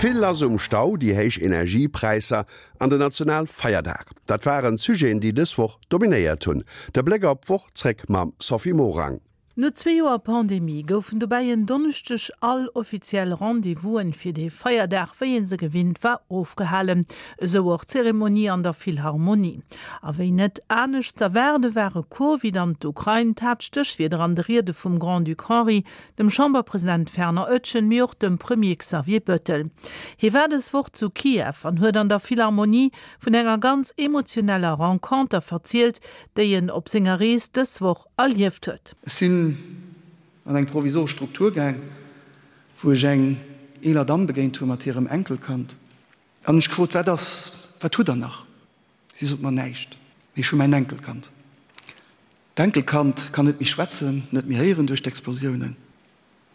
Vill lass um Stau, déi héich Energiepräisser an den Nationalfeierdag, dat waren d'Sujeten, déi dës Woch dominéiert hunn. De Bléck op d'Woch zréck mam Sophie Morang. No zwee Joer Pandemie goufen dobäi en Donneschdeg all offiziell Rendez-vousen fir dee Feierdag, wéi ee se gewinnt war, ofgehalen. Esou och d'Zeremonie an der Philharmonie. A wéi net anescht z'erwaarde ware Covid an d'Ukrain d'Haaptstéchwierder an de Riede vum Grand-Duc Henri, dem Chamberpresident Fernand Oetjen, mee och dem Premier Xavier Bettel. Hie war dës Woch zu Kiew an huet an der Philharmonie vun enger ganz emotioneller Renconter verzielt, déi en op senger Rees dës Woch erlieft huet. Ech sinn an eng provisoresch Struktur gaang, wou ech eng eeler Damm begéint hu mat hirem Enkelkand an hunn ech gefrot, Wat ass, wat hutt Der nach? Si sot mer, Näischt, mee ech hu mäin Enkelkand. D'Enkelkand kann net méi schwätzen, net méi héieren duerch d'Explosiounen.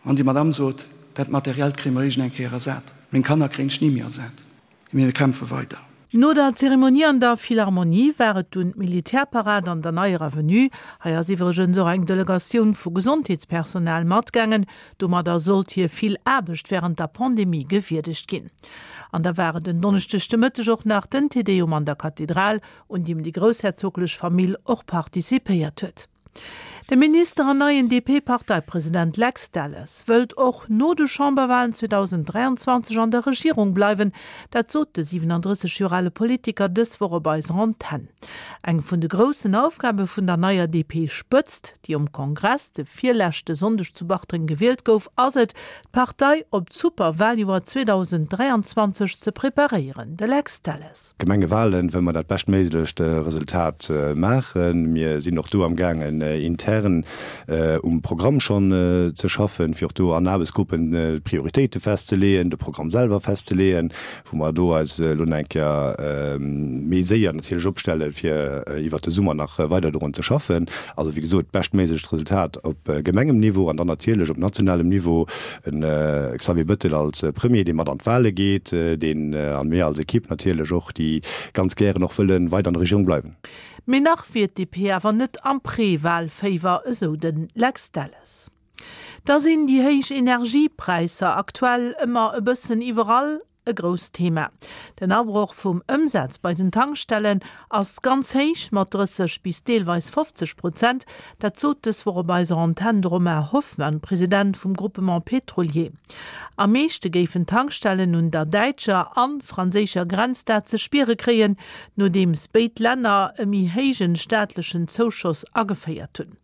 An déi Madame sot, Dat Materiellt kréie mer iergend eng Kéier ersat, meng Kanner kréien ech ni méi ersat, mee mir kämpfe weider. No der Zeremonie an der Philharmonie war et dunn d'Militärparad an der Neier Avenue. Hei ass iwwregens och eng Delegatioun vu Gesondheetspersonal matgaangen. Domadder sollt hir vill Aarbecht wärend der Pandemie gewierdegt ginn. An da war et en Donneschdeg de Mëtteg och nach den Te Deum an der Kathedral, un deem déi groussherzoglech Famill och participéiert huet. De Minister an neien DP-Parteipresident Lex Delles wëllt och no de Chamberwalen 2023 an der Regierung bleiwen. Dat sot de 37 Joer ale Politiker dës Woch op eiser Antenn. Eng vun de groussen Aufgabe vun der neier DP-Spëtzt, déi um Kongress de virleschte Sonndeg zu Bartreng gewielt gouf, ass et, d'Partei op d'Superwaljoer 2023 ze preparéieren. De Lex Delles. Gemengewalen wëlle mer dat beschtméiglecht Resultat maachen. Mir sinn och do am gaangen intern um Programm schonn ze schaffen, fir och do an Aarbechtsgruppen d'Prioritéite festzeleeën, de Programm selwer festzeleeën, wou mer do eis elo nach eng Kéier méi séier natierlech opstellen, fir iwwert de Summer nach weider dorun ze schaffen. Also wéi gesot, d'beschtméiglecht Resultat op Gemengemniveau an dann natierlech op nationalem Niveau En Xavier Bettel als Premier, dee mat an d'Wale geet, deen, an mir als Equipe natierlech och, déi ganz gären och wëlle weider an der Regierung bleiwen. Mee nach wier d'DP awer net am Pré-Wahlféiwer, esou de Lex Delles. Da sinn déi héich Energiepräisser aktuell ëmmer e bëssen iwwerall E grousst Thema. Den Abroch vum Ëmsaz bei den Tankstellen ass ganz héich, mat 30 bis deelweis 50 Prozent. Dat sot dës Woch op eiser Antenn de Romain Hoffmann, President vum Groupement Pétrolier. Am meeschte géifen d'Tankstellen un der däitscher an franséischer Grenz dat ze spiere kréien, nodeems béid Länner e méi héijen staatlechen Zouschoss ageféiert hunn.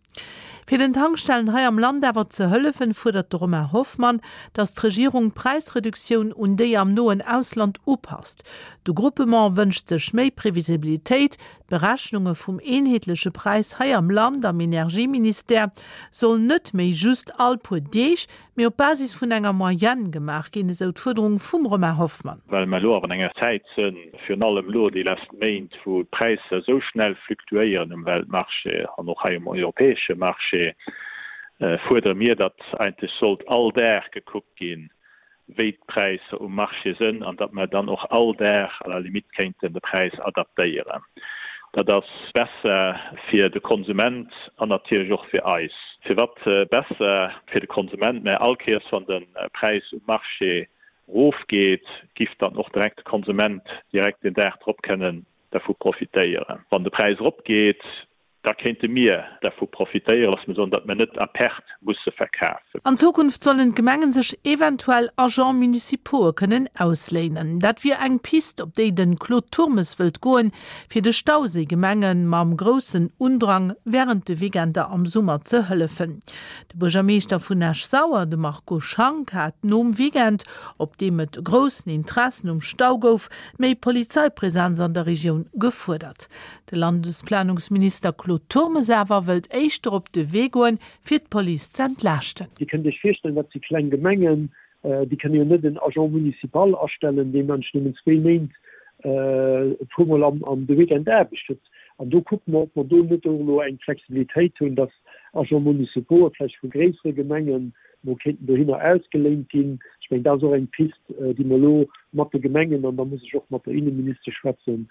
Fir den Tankstellen hei am Land awer ze hëllefen, fuerdert de Romain Hoffmann, datt d'Regierung d'Präisreduktioun un déi am noen Ausland upasst. De Groupement wënscht sech méi Previsibilitéit. D'Berechnunge vum eenheetleche Präis hei am Land am Energieministère soll net méi just all puer Deeg, mee op Basis vun enger Moyenne gemaach ginn, esou d'Fuerderung vum Romain Hoffmann. Well mer elo awer an enger Zäit sënn, virun allem elo déi lescht Méint, wou d'Präisser esou schnell fluktuéieren um Weltmarché an och hei um europäesche Marché, fuerdere mir, datt eigentlech sollt all Dag gekuckt ginn, wéi d'Präisser um Marché sënn an datt mer dann och all Dag à la limite kéinten de Präis adaptéieren. Dat ass besser fir de Konsument an natierlech och fir eis. Firwat besser fir de Konsument? Mä all Kéiers wann de Präis um Marché erofgeet, giff dann och direkt de Konsument direkt den Dag drop kënnen dervu profitéieren. Wann de Präis eropgeet, Da kéinte mir dervu profitéieren, lass mir soen, datt mir net à perte musse verkafen. An Zukunft sollen d'Gemengen sech eventuell Agents municipaux'e kënnen ausléinen. Dat wier eng Pist, op déi de Claude Turmes wëllt goen, fir de Stauséigemenge mam groussen Undrang wärend de Weekender am Summer ze hëllefen. De Buergermeeschter vun Esch-Sauer, de Marco Schank, hat nom Weekend, op deem et groussen Interessen um Stau gouf, méi Polizeipräsenz an der Regioun gefuerdert. De Landesplanungsminister Claude Turmes awer wëllt éischter op de Wee goen, fir d'Police z'entlaaschten. Dir kënnt Iech virstellen, dat si kleng Gemengen, déi kënne jo net en Agent municipal astellen, deen eigentlech nëmmen zwéi Méint e puermol am de Weekend Aarbecht huet. An do kucke mer, ob mer do net och elo eng Flexibilitéit hunn, dass Agents municipaux vläicht vu gréissere Gemengen mol kéinten dohinner ausgeléint ginn. Ech mengen, dat ass och eng Pist, déi mer elo mat de Gemengen, an da muss ech och mat der Inneministesch schwätzen,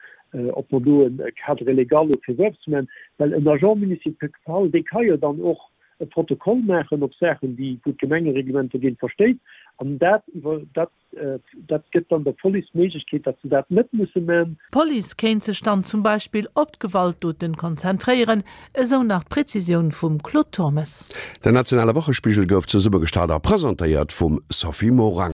ob mer do e Cadre légal elo fir esou eppes maachen. Well en Agent municipal, dee ka jo dann och. e Protokoll maachen op Saachen, déi, wou d'Gemengereglement dogéint verstéisst. An dat iwwer, dat, dat gëtt dann der Police d'Méiglechkeet, datt se dat net musse man. D'Police kéint sech dann zum Beispill op d'Gewaltdoten konzentréieren, esou nach d'Prezisioun vum Claude Turmes. Den nationale Wochespigel gouf zesummegestallt a presentéiert vum Sophie Morang.